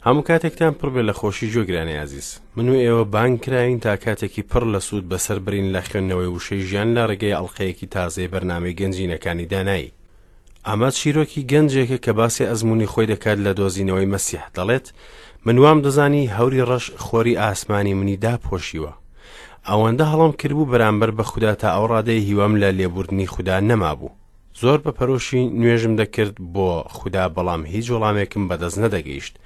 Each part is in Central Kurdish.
هەموو کاتێکتان پڕ بێ لە خۆشی گوێگرانی ئازیز. من و ئێوە بانگ کراوین تا کاتێکی پڕ لە سوود بەسەر برین لە خوێندنەوەی وشەی ژیان لە ڕێگەی ئەڵقەیەکی تازەی بەرنامەی گەنجینەکانی دانایی. ئەمە چیرۆکی گەنجێکە کە باسی ئەزموونی خۆی دەکات لە دۆزینەوەی مەسیح، دەڵێت، من وام دەزانی هەوری ڕەش خۆری ئاسمانی منی داپۆشیوە. ئەوەندە هەڵەم کردبوو بەرامبەر بە خودا تا ئەو ڕادەیە هیوام لە لێبوردنی خودا نەمابوو. زۆر بە پەرۆشی نوێژم دەکرد بۆ خودا بەڵام هیچ وەڵامێکم بەدەست نەدەگەیشت.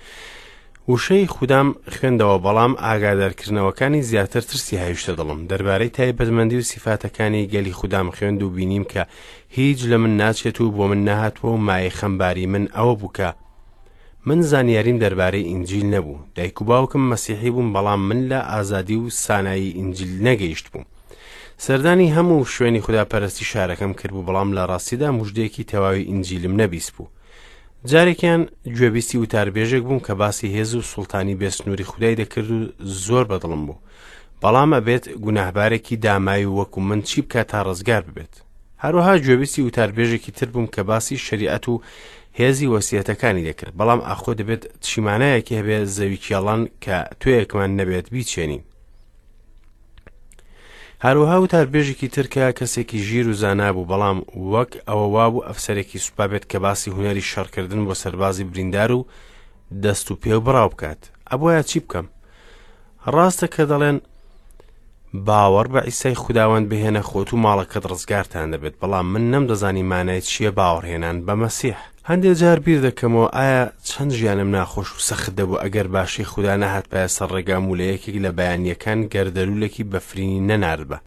وشەی خودام خوێندەوە بەڵام ئاگادارکردنەوەکانی زیاتر ترسی هاویشتە دڵم. دەربارەی تایبەتمەندی و سیفاتەکانی گەلی خودام خوێند و بینیم کە هیچ لە من ناچێت و بۆ من نەهاتووە و مایەی خەمباری من ئەوە بوو کە من زانیاریم دەربارەی ئینجیل نەبوو. دایک و باوکم مەسیحی بوون بەڵام من لە ئازادی و سانایی ئینجیل نەگەیشتبووم. سەردانی هەموو شوێنی خوداپەرستی شارەکەم کردبوو بەڵام لە ڕاستیدا مژدەیەکی تەواوی ئینجیلم نەبیستبوو. جارێکیان گوێبیستی وتاربێژێک بووم کە باسی هێز و سوڵتانی بێسنووری خودای دەکرد و زۆر بەدڵم بوو. بەڵام ئەبێت گوناهبارێکی داماوی وەکو من چی بکات تا ڕزگار ببێت؟ هەروەها گوێبیستی وتاربێژێکی تر بووم کە باسی شەریعەت و هێزی وەسیەتەکانی دەکرد، بەڵام ئاخۆ دەبێت چی مانایەکی هەبێ زەوی کێڵان کە توێیەکمان نەبێت بیچێنین؟ هەروەها وتاربێژێکی تر کە کەسێکی ژیر و زانا بوو، بەڵام وەک ئەوە وابوو ئەفسەرێکی سوپا بێت کە باسی هونەری شەڕکردن بۆ سەربازی بریندار و دەست و پێ و بڕاو بکات. ئەبوایە چی بکەم؟ ڕاستە کە دەڵێن باوەڕ بە عیسای خوداوەند بهێنە خۆت و ماڵەکەت ڕزگارتان دەبێت، بەڵام من نەمدەزانی مانای چییە باوەڕهێنان بە مەسیح. هەندێ جار بیر دەکەمەوە ئایا چەند ژیانم ناخۆش و سەخت دەبوو ئەگەر باشەی خودا نەهاتبایە سەر ڕێگام و لە یەکێک لە بەیانییەکان گەردەلوولێکی بەفرینی نەناردبا.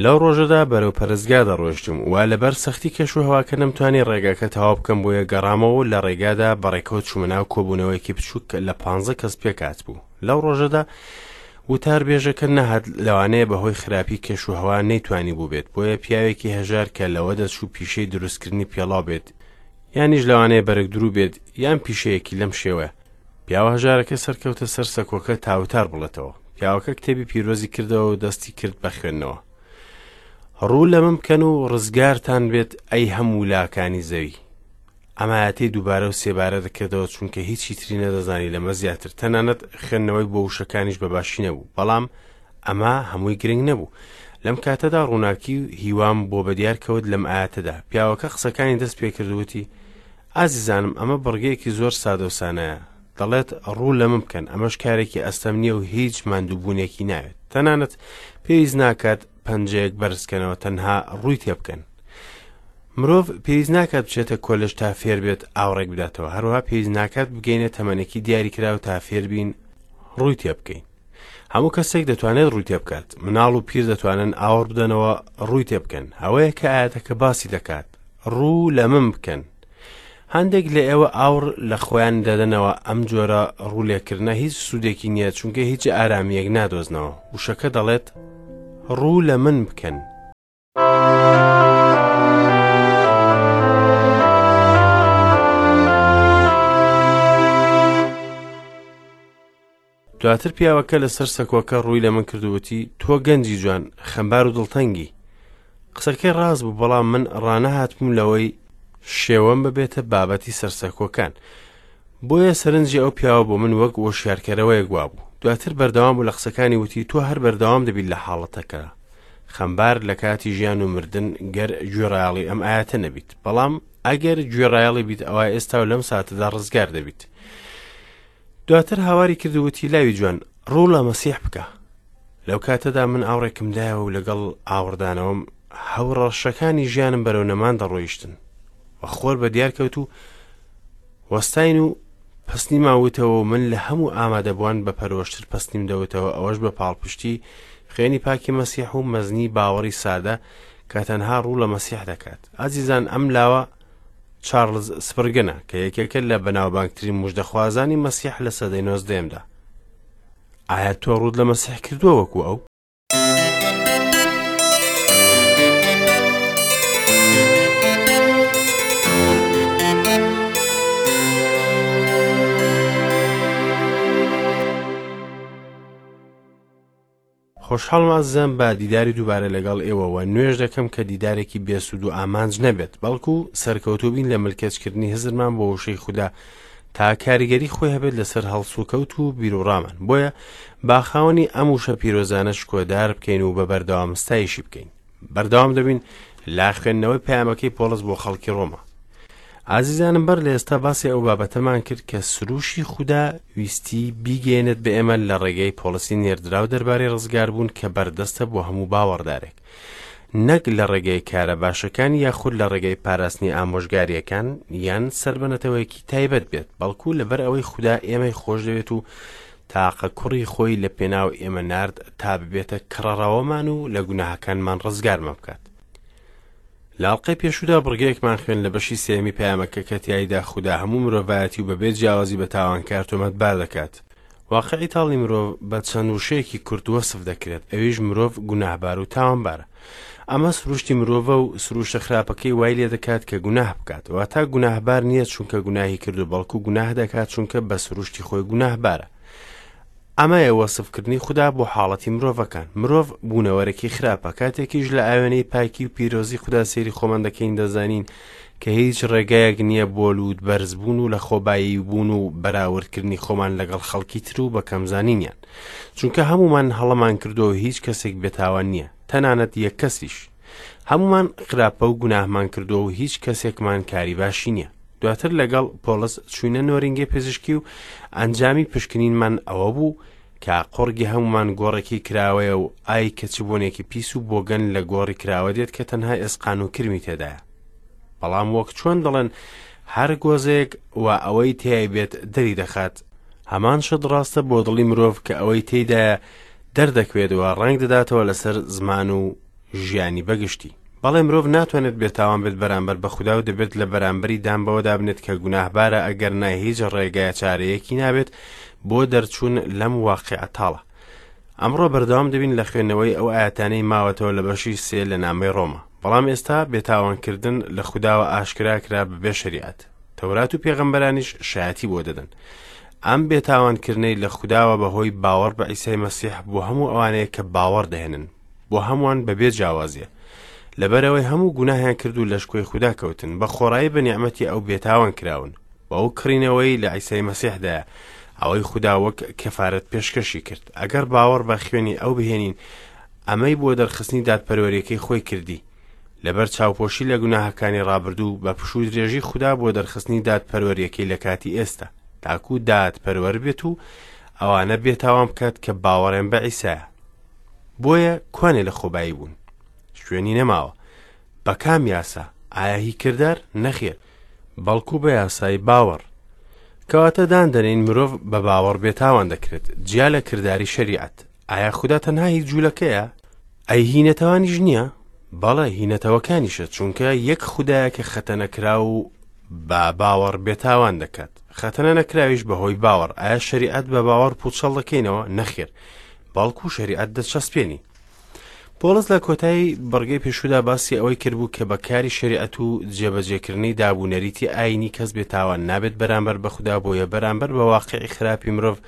لەو ڕۆژەدا بەرەو پەرستگا دەڕۆیشتم و لەبەر سەختی کەشوهەواکە نەمتوانی ڕێگاکە تەواو بکەم بۆیە گەڕامەوە و لە ڕێگادا بەڕێکەوت چوومە ناو کۆبوونەوەیەکی بچووک کە لە پانزە کەس پێکهاتبوو. لەو ڕۆژەدا وتاربێژەکە نەهات لەوانەیە بەهۆی خراپی کەشوهەوا نەیتوانی بووبێت بۆیە پیاوێکی هەژار کە لەوە دەچوو پیشەی دروستکردنی پێڵاو بێت یانیش لەوانەیە بەرگدروو بێت یان پیشەیەکی لەم شێوەیە پیاوە هەژارەکە سەرکەوتە سەر سەکۆکە تا وتار بڵێتەوە پیاوەکە کتێبی پیرۆزی کردەوە و دەستی کرد بە خوێندنەوە ڕوو لە من بکەن و ڕزگارتان بێت ئەی هەموو لاکانی زەوی ئەم ئایەتەی دووبارە و سێبارە دەکردەوە چونکە هیچی تری نەدەزانی لەمە زیاتر تەنانەت خوێندنەوەی بۆ وشەکانیش بە باشی نەبوو بەڵام ئەمە هەمووی گرنگ نەبوو لەم کاتەدا ڕووناکی و هیوام بۆ بەدیار کەوت لەم ئاەتەدا پیاوەکە قسەکانی دەست پێکرد وتی ئازیزانم ئەمە بڕگەیەکی زۆر سادە و سانایە دەڵێت ڕوو لە من بکەن ئەمەش کارێکی ئەستەم نییە و هیچ ماندووبوونێکی ناوێت تەنانەت پێویست ناکات پەنجەیەک بەرزکەنەوە تەنها ڕووی تێبکەن مرۆڤ پێویست ناکات بچێتە کۆلێژ تا فێر بێت ئاوڕێک بداتەوە، هەروەها پێویست ناکات بگەینە تەمەنێکی دیاریکراو تا فێربین ڕووی تێبکەین. هەموو کەسێک دەتوانێت ڕووی تێبکات، مناڵ و پیر دەتوانن ئاوڕ بدەنەوە ڕووی تێبکەن. ئەوەیە کە ئایەتەکە باسی دەکات، ڕوو لە من بکەن. هەندێک لە ئێوە ئاوڕ لە خۆیان دەدەنەوە، ئەم جۆرە ڕوو لێکردنە هیچ سوودێکی نییە چونکە هیچ ئارامییەک نادۆزنەوە. وشەکە دەڵێت، ڕوو لە من بکەن. دواتر پیاوەکە لەسەر سەکۆکە ڕووی لە من کرد و وتی تۆ گەنجی جوان خەمبار و دڵتەنگی قسەکەی ڕاست بوو بەڵام من ڕانەهاتبووم لەوەی شێوەم ببێتە بابەتی سەرسەکۆکان بۆیە سەرنجی ئەو پیاوە بۆ من وەک وۆشیارکەرەوەیەک وابوو دواتر بەردەوام بوو لە قسەکانی وتی تۆ هەر بەردەوام دەبیت لە حاڵەتەکە خەمبار لە کاتی ژیان و مردن گەر گوێڕایەڵی ئەم ئایەتە نەبیت بەڵام ئەگەر گوێڕایەڵی بیت ئەوا ئێستا و لەم ساتەدا ڕزگار دەبیت دواتر هاواری کرد و وتی لاوی جوان ڕوو لە مەسیح بکە لەو کاتەدا من ئاوڕێکم دایەوە و لەگەڵ ئاوڕدانەوەم هەوڕەشەکانی ژیانم بەرەو نەمان دەڕۆیشتن و خۆر بە دیار کەوت و وەستاین و پەسنیمان وتەوە و من لە هەموو ئامادەبووان بە پەرۆشتر پەسنیم دەوتەوە ئەوەش بە پاڵپشتی خوێنی پاکی مەسیح و مەزنی باوەڕی سادە کە تەنها ڕوو لە مەسیح دەکات ئازیزان ئەم لاوە چارلز سپرگنە کە یەکێکە لە بەناوبانگترین مژدەخوازانی مەسیح لە سەدەی نۆزدەیەمدا ئایا تۆ ڕووت لە مەسیح کردووە وەکو ئەو؟ خۆشحاڵم ئازیزان بە دیداری دووبارە لەگەڵ ئێوە وە نوێژ دەکەم کە دیدارێکی بێسوود و ئامانج نەبێت بەڵکو سەرکەوتوو بین لە ملکەچکردنی هزرمان بۆ وشەی خودا تا کاریگەری خۆی هەبێت لەسەر هەڵسوکەوت و بیروڕامان. بۆیە با خاوەنی ئەم وشە پیرۆزانە شکۆدار بکەین و بە بەردەوام ستایشی بکەین. بەردەوام دەبین لە خوێندنەوەی پەیامەکەی پۆڵس بۆ خەڵکی ڕۆما. ئازیزانم بەر لە ئێستا باسی ئەو بابەتەمان کرد کە سروشی خودا ویستی بیگەیەنێت بە ئێمە لە ڕێگەی پۆڵسی نێردراو دەربارەی ڕزگاربوون کە بەردەستە بۆ هەموو باوەڕدارێک. نەک لە ڕێگەی کارە باشەکان یاخود لە ڕێگەی پاراستنی ئامۆژگارییەکان یان سەر بە نەتەوەیەکی تایبەت بێت، بەڵکو لەبەر ئەوەی خودا ئێمەی خۆشدەوێت و تاقە کوڕی خۆی لە پێناو ئێمە نارد تا ببێتە کڕەڕەوەمان و لە گوناهەکانمان ڕزگارمان بکات. لە ئەڵقەی پێشوودا بڕگەیەکمان خوێند لە بەشی سێیەمی پەیامەکە کە تیایدا خودا هەموو مرۆڤایەتی و بەبێ جیاوازی بە تاوانکار تۆمەتبار دەکات. واقعی تاڵی مرۆڤ بە چەند وشەیەکی کورت وەسف دەکرێت، ئەویش مرۆڤ گوناهبار و تاوانبارە. ئەمە سروشتی مرۆڤە و سروشتە خراپەکەی وای لێ دەکات کە گوناه بکات. واتا گوناهبار نییە چونکە گوناهی کردو، بەڵکو گوناه دەکات چونکە بە سروشتی خۆی گوناهبارە. ئەمەیە وەسفکردنی خودا بۆ حاڵەتی مرۆڤەکان. مرۆڤ بوونەوەرێکی خراپە. کاتێکیش لە ئاوێنەی پاکی و پیرۆزی خودا سەیری خۆمان دەکەین دەزانین کە هیچ ڕێگایەک نییە بۆ لووت بەرزبوون و لەخۆبایی بوون و بەراوردکردنی خۆمان لەگەڵ خەڵکی تر و بەکەمزانینیان. چونکە هەموومان هەڵەمان کردووە و هیچ کەسێک بێتاوان نییە، تەنانەت یەک کەسیش. هەموومان خراپە و گوناهمان کردووە و هیچ کەسێکمان کاری باشی نییە. دواتر لەگەڵ پۆڵس چووینە نۆرینگەی پزیشکی و ئەنجامی پشکنینمان ئەوە بوو کە قوڕگی هەموومان گۆڕێکی کراوەیە و ئای کە چ بۆنێکی پیس و بۆگەن لە گۆڕی کراوە دێت کە تەنها ئێسقان و کرمی تێدایە. بەڵام وەک چۆن دەڵێن هەر گۆزەیەک و ئەوەی تیای بێت دەری دەخات، هەمان شت ڕاستە بۆ دڵی مرۆڤ کە ئەوەی تێیدایە دەردەکوێت و ڕەنگ دەداتەوە لەسەر زمان و ژیانی بەگشتی. بەڵێ مرۆڤ ناتوانێت بێتاوان بێت بەرامبەر بە خودا و دەبێت لە بەرامبەری دان بەوەدا بنێت کە گوناهبارە ئەگەرنا هیچ ڕێگایە چارەیەکی نابێت بۆ دەرچوون لەم واقیعە تاڵە. ئەمڕۆ بەردەوام دەبین لە خوێندنەوەی ئەو ئایەتانەی ماوەتەوە لە بەشی سێ لە نامەی ڕۆما. بەڵام ئێستا بێتاوانکردن لە خوداوە ئاشکرا کرا بەبێ شەریعەت. تەورات و پێغەمبەرانیش شایەتی بۆ دەدەن. ئەم بێتاوانکردنەی لە خوداوە بەهۆی باوەڕ بە عیسای مەسیح بۆ هەموو ئەوانەیە کە باوەڕ دەهێنن. بۆ هەمووان بەبێ جیاوازیە. لەبەرئەوەی هەموو گوناهیان کرد و لە شکۆی خودا کەوتن، بە خۆڕایی بە نیعمەتی ئەو بێتاوان کراون، بەو کڕینەوەی لە عیسای مەسیحدایە، ئەوەی خودا وەک کەفارەت پێشکەشی کرد. ئەگەر باوەڕ بە خوێنی ئەو بهێنین، ئەمەی بۆ دەرخستنی دادپەروەریەکەی خۆی کردی، لەبەر چاوپۆشی لە گوناهەکانی ڕابردوو، بە پشوودرێژی خودا بۆ دەرخستنی دادپەروەریەکەی لە کاتی ئێستا، تاکو دادپەروەر بێت و ئەوانە بێتاوان بکات کە باوەڕیان بە عیسایە. بۆیە کوانێ لە خۆبایی بوون شوێنی نەماوە بە کام یاسا ئایا هی کردار نەخێر بەڵکو بە یاسای باوەڕ کەواتە دان دەنین مرۆڤ بە باوەڕ بێتاوان دەکرێت جیا لە کرداری شەریعەت ئایا خودا تەنها هی جوولەکەیە ئەی هی نەتەوانیش نییە بەڵێ هی نەتەوەکانیشە چونکە یەک خودایە کە خەتەنەکراو و بە باوەڕ بێتاوان دەکات خەتەنە نەکراویش بەهۆی باوەڕ ئایا شەریعەت بە باوەڕ پوچەڵ دەکەینەوە نەخێر بەڵکو شەریعەت دەچەسپێنی. پۆڵس لە کۆتایی بڕگەی پێشوودا باسی ئەوەی کردبوو کە بە کاری شەریعەت و جێبەجێکردنی داب و نەریتی ئایینی کەس بێتاوان نابێت بەرامبەر بە خودا بۆیە بەرامبەر بە واقعی خراپی مرۆڤ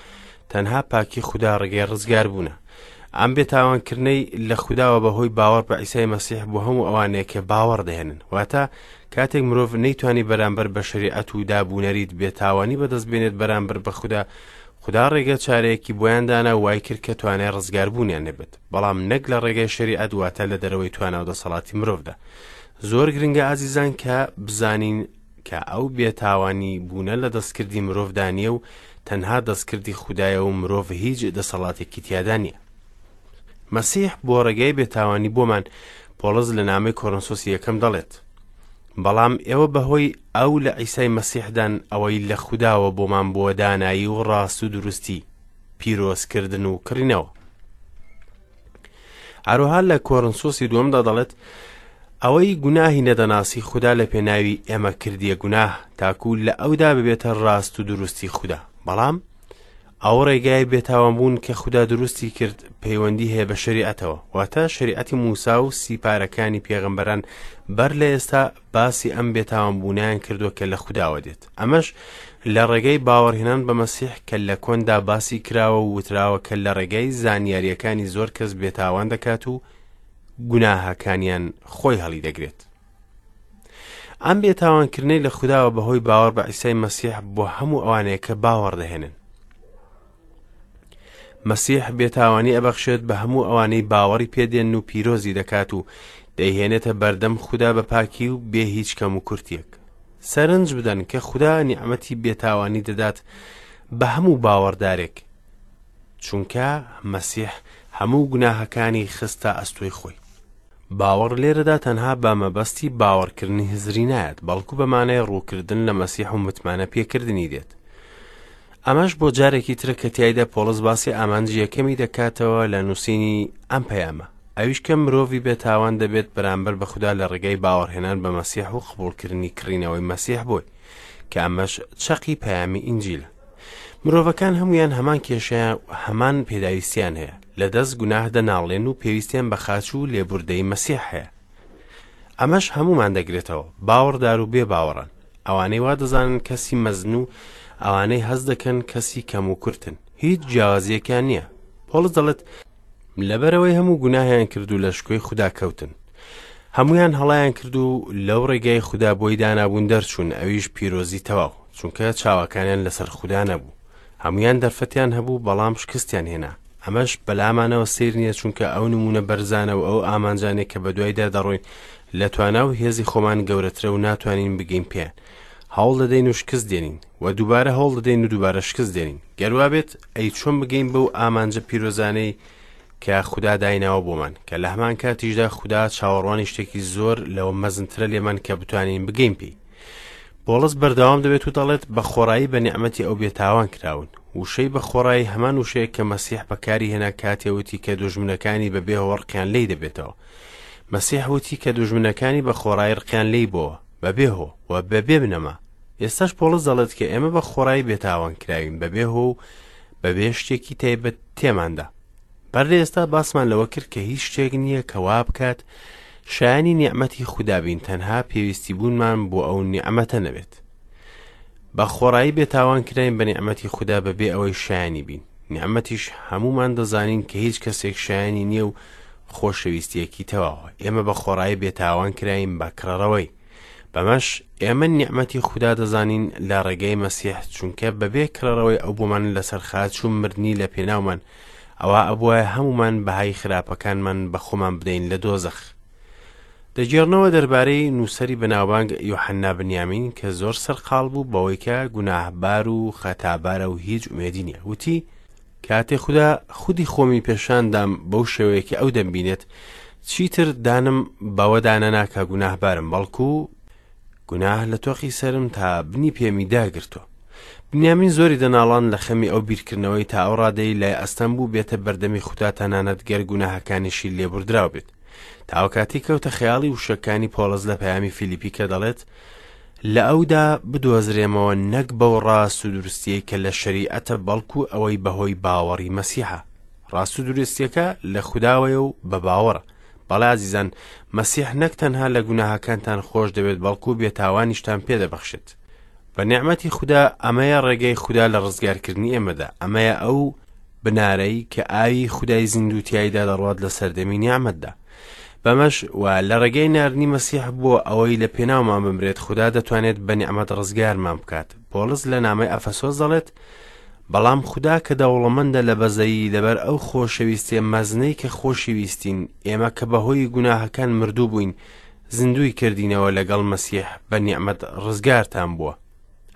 تەنها پاکی خودا ڕێگەی ڕزگاربوونە. ئەم بێتاوانکردنەی لە خوداوە بەهۆی باوەڕ بە عیسای مەسیح بۆ هەموو ئەوانەیە کە باوەڕ دەهێنن. واتە کاتێک مرۆڤ نەیتوانی بەرامبەر بە شەریعەت و داب و نەریت بێتاوانی بەدەست بێنێت بەرامبەر بە خودا خودا ڕێگە چارەیەکی بۆیان دانا و وای کرد کە توانای ڕزگاربوونیان نەبێت، بەڵام نەک لە ڕێگای شەریعەت واتە لە دەرەوەی توانا و دەسەڵاتی مرۆڤدا. زۆر گرنگە ئازیزان کە بزانین کە ئەو بێتاوانی بوونە لە دەستکردی مرۆڤدا نییە و تەنها دەستکردی خودایە و مرۆڤ هیچ دەسەڵاتێکی تیادا نییە. مەسیح بۆ ڕێگای بێتاوانی بۆمان پۆڵس لە نامەی کۆرنسۆسی یەکەم دەڵێت، بەڵام ئێوە بەهۆی ئەو لە عیسای مەسیحدان ئەوەی لە خوداوە بۆمان بووە دانایی و ڕاست و دروستی، پیرۆزکردن و کڕینەوە. هەروەها لە کۆرنسۆسی دووەمدا دەڵێت ئەوەی گوناهی نەدەناسی خودا لە پێناوی ئێمە کردیە گوناه تاکو لە ئەودا ببێتە ڕاست و دروستی خودا بەڵام ئەو ڕێگای بێتاوانبوون کە خودا دروستی کرد پەیوەندی هەیە بە شەریعەتەوە، واتە شەریعەتی موسا و سیپارەکانی پێغەمبەران بەر لە ئێستا باسی ئەم بێتاوانبوونەیان کردووە کە لە خوداوە دێت. ئەمەش لە ڕێگەی باوەڕهێنان بە مەسیح کە لە کۆندا باسی کراوە و وتراوە کە لە ڕێگای زانیارییەکانی زۆر کەس بێتاوان دەکات و گوناهەکانیان خۆی هەڵیدەگرێت. ئەم بێتاوانکردنەی لە خوداوە بەهۆی باوەڕ بە عیسای مەسیح بۆ هەموو ئەوانەیە کە باوەڕ دەهێنن. مەسیح بێتاوانی ئەبەخشێت بە هەموو ئەوانەی باوەڕی پێدێن و پیرۆزی دەکات و دەیهێنێتە بەردەم خودا بە پاکی و بێ هیچ کەم و کورتیەک. سەرنج بدەن کە خودا نیعمەتی بێتاوانی دەدات بە هەموو باوەڕدارێک، چونکە مەسیح هەموو گوناهەکانی خستە ئەستۆی خۆی. باوەڕ لێرەدا تەنها بە مەبەستی باوەڕکردنی هزری نایەت، بەڵکو بە مانای ڕووکردن لە مەسیح و متمانە پێکردنی دێت. ئەمەش بۆ جارێکی ترە کە تیایدا پۆڵس باسی ئامانجی یەکەمی دەکاتەوە لە نووسینی ئەم پەیامە، ئەویش کە مرۆڤی بێتاوان دەبێت بەرامبەر بە خودا لە ڕێگای باوەڕهێنان بە مەسیح و قبوڵکردنی کڕینەوەی مەسیح بۆی، کە ئەمەش چەقی پەیامی ئینجیلە. مرۆڤەکان هەمویان هەمان کێشەیان و هەمان پێداویستیان هەیە، لە دەست گوناه دەناڵێن و پێویستیان بە خاچ و لێبوردەی مەسیح هەیە. ئەمەش هەمومان دەگرێتەوە، باوەڕدار و بێ باوەڕان، ئەوانەی وا دەزانن کەسی مەزن و ئەوانەی هەست دەکەن کەسی کەم و کورتن، هیچ جیاوازیەکیان نییە. پۆڵس دەڵێت، لەبەرئەوەی هەموو گوناهیان کرد و لە شکۆی خودا کەوتن. هەموویان هەڵەیان کرد و لەو ڕێگای خودا بۆی دانابوون دەرچوون، ئەویش پیرۆزی تەواو، چونکە چاوەکانیان لەسەر خودا نەبوو. هەموویان دەرفەتیان هەبوو، بەڵام شکستیان هێنا. ئەمەش بەلامانەوە سەیر نییە، چونکە ئەو نموونە بەرزانە و ئەو ئامانجانەی کە بەدوایدا دەڕۆین لە توانا و هێزی خۆمان گەورەترە و ناتوانین بگەین پێیان. هەوڵ دەدەین و شکست دێنین و دووبارە هەوڵ دەدەین و دووبارە شکست دێنین. گەر وابێت ئەی چۆن بگەین بەو ئامانجە پیرۆزانەی کە خودا دایناوە بۆمان، کە لە هەمان کاتیشدا خودا چاوەڕوانی شتێکی زۆر لەوە مەزنترە لێمان کە بتوانین بگەین پێی. پۆڵس بەردەوام دەبێت و دەڵێت بە خۆڕایی بە نیعمەتی ئەو بێتاوان کراون. وشەی بە خۆڕایی هەمان وشەیە کە مەسیح بەکاری هێنا کاتێ وتی کە دوژمنەکانی بە بێ هۆ ڕقیان لێی دەبێتەوە. مەسیح وتی کە دوژمنەکانی بە خۆڕایی ڕقیان لێی بۆوە، بە بێ هۆ و بە بێ بنەما. ئێستاش پۆڵس دەڵێت کە ئێمە بە خۆڕایی بێتاوان کراوین بەبێ هۆ و بەبێ شتێکی تایبەت تێماندا. بەر لە ئێستا باسمان لەوە کرد کە هیچ شتێک نییە کە وا بکات شایانی نیعمەتی خودا بین تەنها پێویستی بوونمان بۆ ئەو نیعمەتە نەبێت. بە خۆڕایی بێتاوان کراین بە نیعمەتی خودا بەبێ ئەوەی شایانی بین. نیعمەتیش هەموومان دەزانین کە هیچ کەسێک شایانی نییە و خۆشەویستیەکی تەواوە. ئێمە بە خۆڕایی بێتاوان کراین بە کڕەڕەوەی. بەمەش ئێمە نیعمەتی خودا دەزانین لە ڕێگەی مەسیح، چونکە بەبێ کڕەڕەوەی ئەو بۆمان لەسەر خاچ و مردنی لە پێناومان، ئەوا ئەبوایە هەموومان بەهای خراپەکانمان بە خۆمان بدەین لە دۆزەخ. دەگێڕنەوە دەربارەی نووسەری بەناوبانگ یۆحەننا بنیامین کە زۆر سەرقاڵ بوو بەوەی کە گوناهبار و خەتابارە و هیچ ئومێدی نییە، وتی، کاتێ خودا خودی خۆمی پێشان دام بەو شێوەیە کە ئەو دەمبینێت، چیتر دانم بەوەدا نەنا کە گوناهبارم، بەڵکو گوناه لە تۆقی سەرم تا بنی پێمی داگرتووە. بنیامین زۆری دەناڵاند لە خەمی ئەو بیرکردنەوەی تا ئەو ڕادەی لای ئەستەم بوو بێتە بەردەمی خودا تەنانەت گەر گوناهەکانیشی لێبوردراو بێت. تا ئەو کاتەی کەوتە خەیاڵی وشەکانی پۆڵس لە پەیامی فیلیپی کە دەڵێت، لە ئەودا بدۆزرێمەوە نەک بەو ڕاست و دروستیەی کە لە شەریعەتە بەڵکو ئەوەی بەهۆی باوەڕی مەسیحە. ڕاست و دروستیەکە لە خوداوەیە و بە باوەڕە. بەڵێ ئازیزان، مەسیح نەک تەنها لە گوناهەکانتان خۆش دەبێت بەڵکو بێتاوانیشتان پێدەبەخشێت. بە نیعمەتی خودا ئەمەیە ڕێگەی خودا لە ڕزگارکردنی ئێمەدا، ئەمەیە ئەو بنارەی کە ئاوی خودای زیندوو تیایدا دەڕوات لە سەردەمی نیعمەتدا. بەمەش و لە ڕێگەی ناردنی مەسیح بۆ ئەوەی لە پێناومان بمرێت خودا دەتوانێت بە نیعمەت ڕزگارمان بکات. پۆڵس لە نامەی ئەفەسۆس دەڵێت، بەڵام خودا کە دەوڵەمەندە لە بەزەیی لەبەر ئەو خۆشەویستیە مەزنەی کە خۆشیویستین، ئێمە کە بەهۆی گوناهەکان مردوو بووین، زیندووی کردینەوە لەگەڵ مەسیح بە نیعمەت ڕزگارتان بووە.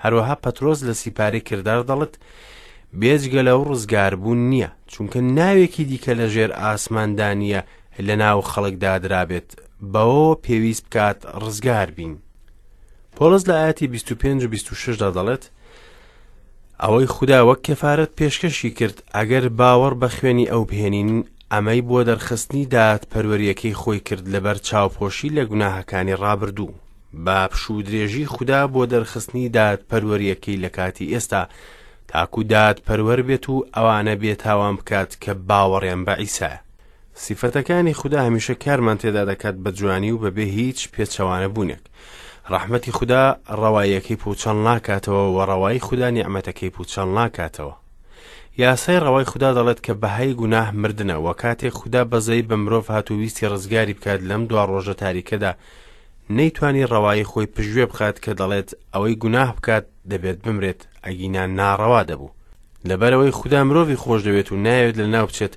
هەروەها پەترۆس لە سیپارەی کردار دەڵێت، بێجگە لەو ڕزگاربوون نییە، چونکە ناوێکی دیکە لە ژێر ئاسماندا نییە لە ناو خەڵکدا درابێت، بەوەوە پێویست بکات ڕزگار بین. پۆڵس لە ئاەتی 25 و 26 دا دەڵێت، ئەوەی خودا وەک کەفارەت پێشکەشی کرد، ئەگەر باوەڕ بە خوێنی ئەو بهێنین، ئەمەی بۆ دەرخستنی دادپەروەرییەکەی خۆی کرد لەبەر چاوپۆشی لە گوناهەکانی ڕابردوو، بە پشوودرێژی خودا بۆ دەرخستنی دادپەروەرییەکەی لە کاتی ئێستا، تاکو دادپەروەر بێت و ئەوانە بێتاوان بکات کە باوەڕیان بە عیسایە. سیفەتەکانی خودا هەمیشە کارمان تێدا دەکات بە جوانی و بەبێ هیچ پێچەوانە بوونێک. ڕەحمەتی خودا ڕەواییەکەی پووچەڵ ناکاتەوە و ڕەوایی خودا نیعمەتەکەی پووچەڵ ناکاتەوە. یاسای ڕەوای خودا دەڵێت کە بەهای گوناه مردنە و کاتێک خودا بەزەیی بە مرۆڤ هات و ویستی ڕزگاری بکات لەم دوا ڕۆژە تاریکەدا نەیتوانی ڕەوایی خۆی پشتگوێ بخات کە دەڵێت ئەوەی گوناه بکات دەبێت بمرێت، ئەگینا ناڕەوا دەبوو. لەبەرئەوەی خودا مرۆڤی خۆشدەوێت و نایەوێت لەناو بچێت،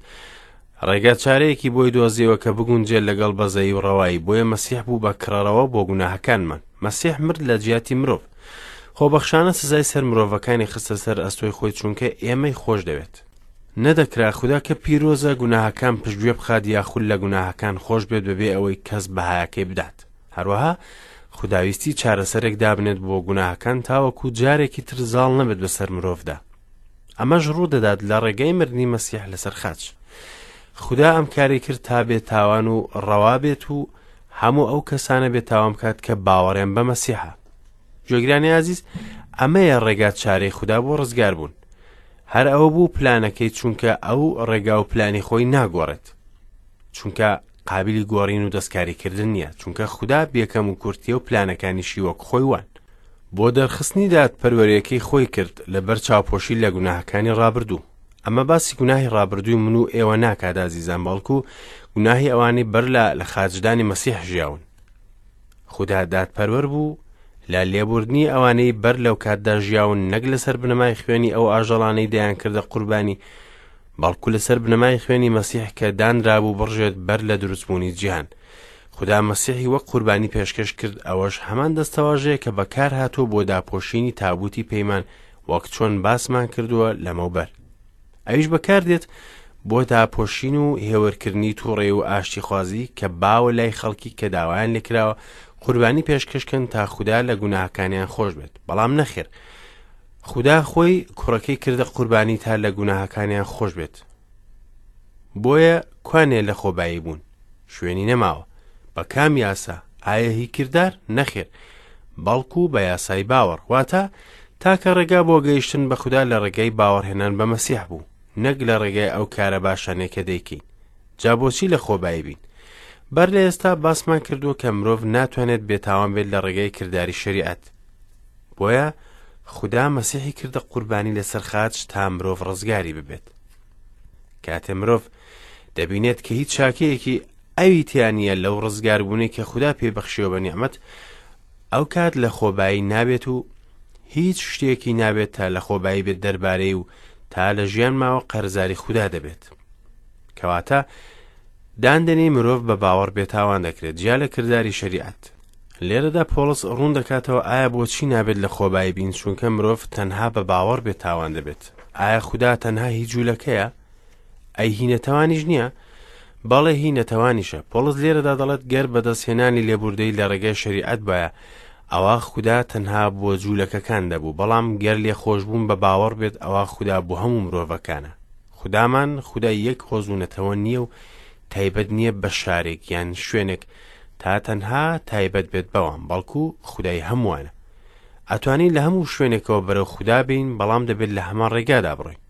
ڕێگا چارەیەکی بۆی دۆزیەوە کە بگونجێت لەگەڵ بەزەیی و ڕەوایی، بۆیە مەسیح بوو بە کڕەرەوە بۆ گوناهەکانمان. مەسیح مرد لە جیاتی مرۆڤ. خۆبەخشانە سزای سەر مرۆڤەکانی خستە سەر ئەستۆی خۆی چونکە ئێمەی خۆش دەوێت. نەدەکرا خودا کە پیرۆزە گوناهەکان پشتگوێ بخات یاخود لە گوناهەکان خۆش بێت بەبێ ئەوەی کەس بەهایەکەی بدات. هەروەها خودا ویستی چارەسەرێک دابنێت بۆ گوناهەکان تاوەکو جارێکی تر زاڵ نەبێت بەسەر مرۆڤدا. ئەمەش ڕوودەدات لە ڕێگەی مردنی مەسیح لەسەر خاچ. خودا ئەم کاری کرد تا بێ تاوان و ڕەوا بێت و هەموو ئەو کەسانە بێ تاوان بکات کە باوەڕیان بە مەسیحە. گوێگرانی ئازیز، ئەمەیە ڕێگا چارەی خودا بۆ ڕزگار بوون. هەر ئەوە بوو پلانەکەی چونکە ئەو ڕێگا و پلانی خۆی ناگۆڕێت. چونکە قابلی گۆڕین و دەستکاریکردن نییە، چونکە خودا بێکەم و کورتیە و پلانەکانیشی وەک خۆی وان. بۆ دەرخستنی دادپەروەریەکەی خۆی کرد لەبەر چاوپۆشی لە گوناهەکانی ڕابردوو. ئەمە باسی گوناهی ڕابردووی من و ئێوە ناکات ئازیزان، بەڵکو گوناهی ئەوانەی بەر لە لە خاچدانی مەسیح ژیاون. خودا دادپەروەر بوو لە لێبوردنی ئەوانەی بەر لەو کاتدا ژیاون نەک لەسەر بنەمای خوێنی ئەو ئاژەڵانەی دەیانکردە قوربانی بەڵکو لەسەر بنەمای خوێنی مەسیح کە دانرابوو بڕژێت بەر لە دروستبوونی جیهان. خودا مەسیحی وەک قوربانی پێشکەش کرد، ئەوەش هەمان دەستەواژەیە کە بەکارهاتووە بۆ داپۆشینی تابوتی پەیمان وەک چۆن باسمان کردووە لەمەوبەر. ئەویش بەکاردێت بۆ داپۆشین و هێورکردنی توڕەیی و ئاشتیخوازی کە باوە لای خەڵکی کە داوایان لێکراوە قوربانی پێشکەشکەن تا خودا لە گوناهەکانیان خۆش بێت، بەڵام نەخێر خودا خۆی کوڕەکەی کردە قوربانی تا لە گوناهەکانیان خۆش بێت. بۆیە کوانێ لە خۆبایی بوون شوێنی نەماوە. بە کام یاسا؟ ئایا هی کردار؟ نەخێر، بەڵکو بە یاسای باوەڕ. واتە تاکە ڕێگا بۆ گەیشتن بە خودا لە ڕێگای باوەڕهێنان بە مەسیح بوو، نەک لە ڕێگای ئەو کارە باشانەی کە دەیکەین. جا بۆچی لە خۆبایی بین؟ بەر لە ئێستا باسمان کردووە کە مرۆڤ ناتوانێت بێتاوان بێت لە ڕێگای کرداری شەریعەت. بۆیە خودا مەسیحی کردە قوربانی لەسەر خاچ تا مرۆڤ ڕزگاری ببێت. کاتێ مرۆڤ دەبینێت کە هیچ چاکەیەکی ئەوی تیا نییە لەو ڕزگاربوونەی کە خودا پێی بەخشیوە بە نیعمەت، ئەو کات لە خۆبایی نابێت و هیچ شتێکی نابێت تا لە خۆبایی بێت دەربارەی و تا لە ژیان ماوە قەرزاری خودا دەبێت. کەواتە داندەنێی مرۆڤ بە باوەڕ بێتاوان دەکرێت جیا لە کرداری شەریعەت. لێرەدا پۆڵس ڕوون دەکاتەوە ئایا بۆچی نابێت لە خۆبایی بین چونکە مرۆڤ تەنها بە باوەڕ بێتاوان دەبێت. ئایا خودا تەنها هی جوولەکەیە؟ ئەی هی نەتەوانیش نییە؟ بەڵێ هی نەتەوانیشە. پۆڵس لێرەدا دەڵێت گەر بەدەستهێنانی لێبوردەیی لە ڕێگای شەریعەت بایە ئەوا خودا تەنها بۆ جوولەکەکان دەبوو، بەڵام گەر لێخۆشبوون بە باوەڕ بێت ئەوا خودا بۆ هەموو مرۆڤەکانە. خودامان خودای یەک هۆز و نەتەوە نییە و تایبەت نییە بە شارێک یان شوێنێک تا تەنها تایبەت بێت بەوان، بەڵکو خودای هەمووانە. ئەتوانین لە هەموو شوێنێکەوە بەرەو خودا بێین، بەڵام دەبێت لە هەمان ڕێگادا بڕۆین.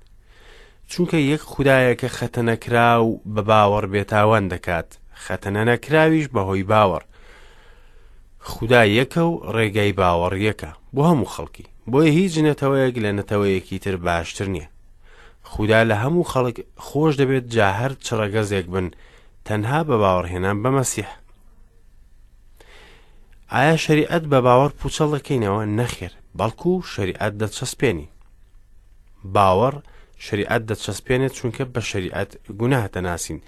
چونکە یەک خودایە کە خەتەنەکراو بە باوەڕ بێتاوان دەکات، خەتەنەنەکراویش بەهۆی باوەڕ. خودا یەکە و ڕێگای باوەڕ یەکە بۆ هەموو خەڵکی، بۆیە هیچ نەتەوەیەک لە نەتەوەیەکی تر باشتر نییە. خودا لە هەموو خەڵک خۆش دەبێت جا هەر چ ڕەگەزێک بن تەنها بە باوەڕهێنان بە مەسیح. ئایا شەریعەت بە باوەڕ پوچەڵ دەکەینەوە؟ نەخێر، بەڵکو شەریعەت دەچەسپێنین. باوەڕ شەریعەت دەچەسپێنێت چونکە بە شەریعەت گوناه دەناسین،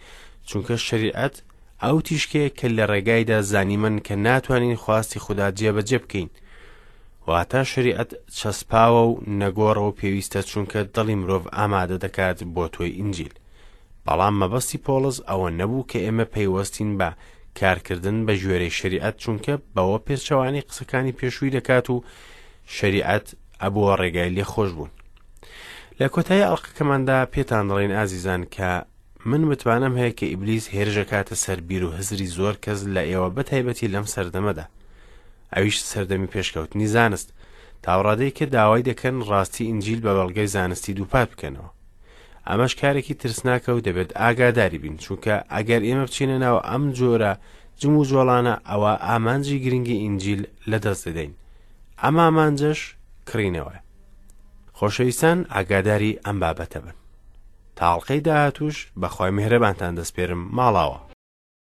چونکە شەریعەت ئەو تیشکەیە کە لە ڕێگایدا زانیمن کە ناتوانین خواستی خودا جێبەجێ بکەین. واتە شەریعەت چەسپاوە و نەگۆڕە و پێویستە چونکە دڵی مرۆڤ ئامادە دەکات بۆ تۆی ئینجیل. بەڵام مەبەستی پۆڵس ئەوە نەبوو کە ئێمە پەیوەستین بە کارکردن بە گوێرەی شەریعەت چونکە بەوە پێچەوانەی قسەکانی پێشووی دەکات و شەریعەت ئەبووە ڕێگای لێخۆشبوون. لە کۆتایی ئەڵقەکەماندا پێتان دەڵێین ئازیزان کە من متمانەم هەیە کە ئیبلیس هێرشەکاتە سەر بیر و هزری زۆر کەس لە ئێوە بە تایبەتی لەم سەردەمەدا ئەویش سەردەمی پێشکەوتنی زانست تاوڕادەی کە داوای دەکەن ڕاستی ئینجیل بە بەڵگەی زانستی دووپات بکەنەوە ئەمەش کارێکی ترسناکە و دەبێت ئاگاداری بین چونکە ئەگەر ئێمە بچینە ناو ئەم جۆرە جموجۆڵانە ئەوە ئامانجی گرنگی ئینجیل لەدەست دەدەین ئەم ئامانجەش کڕینەوەیە خۆشەویستان ئاگاداری ئەم بابەتە بن تا ئەڵقەی داهاتووش بەخوای میهرەبانتان دەسپێرم ماڵاوە.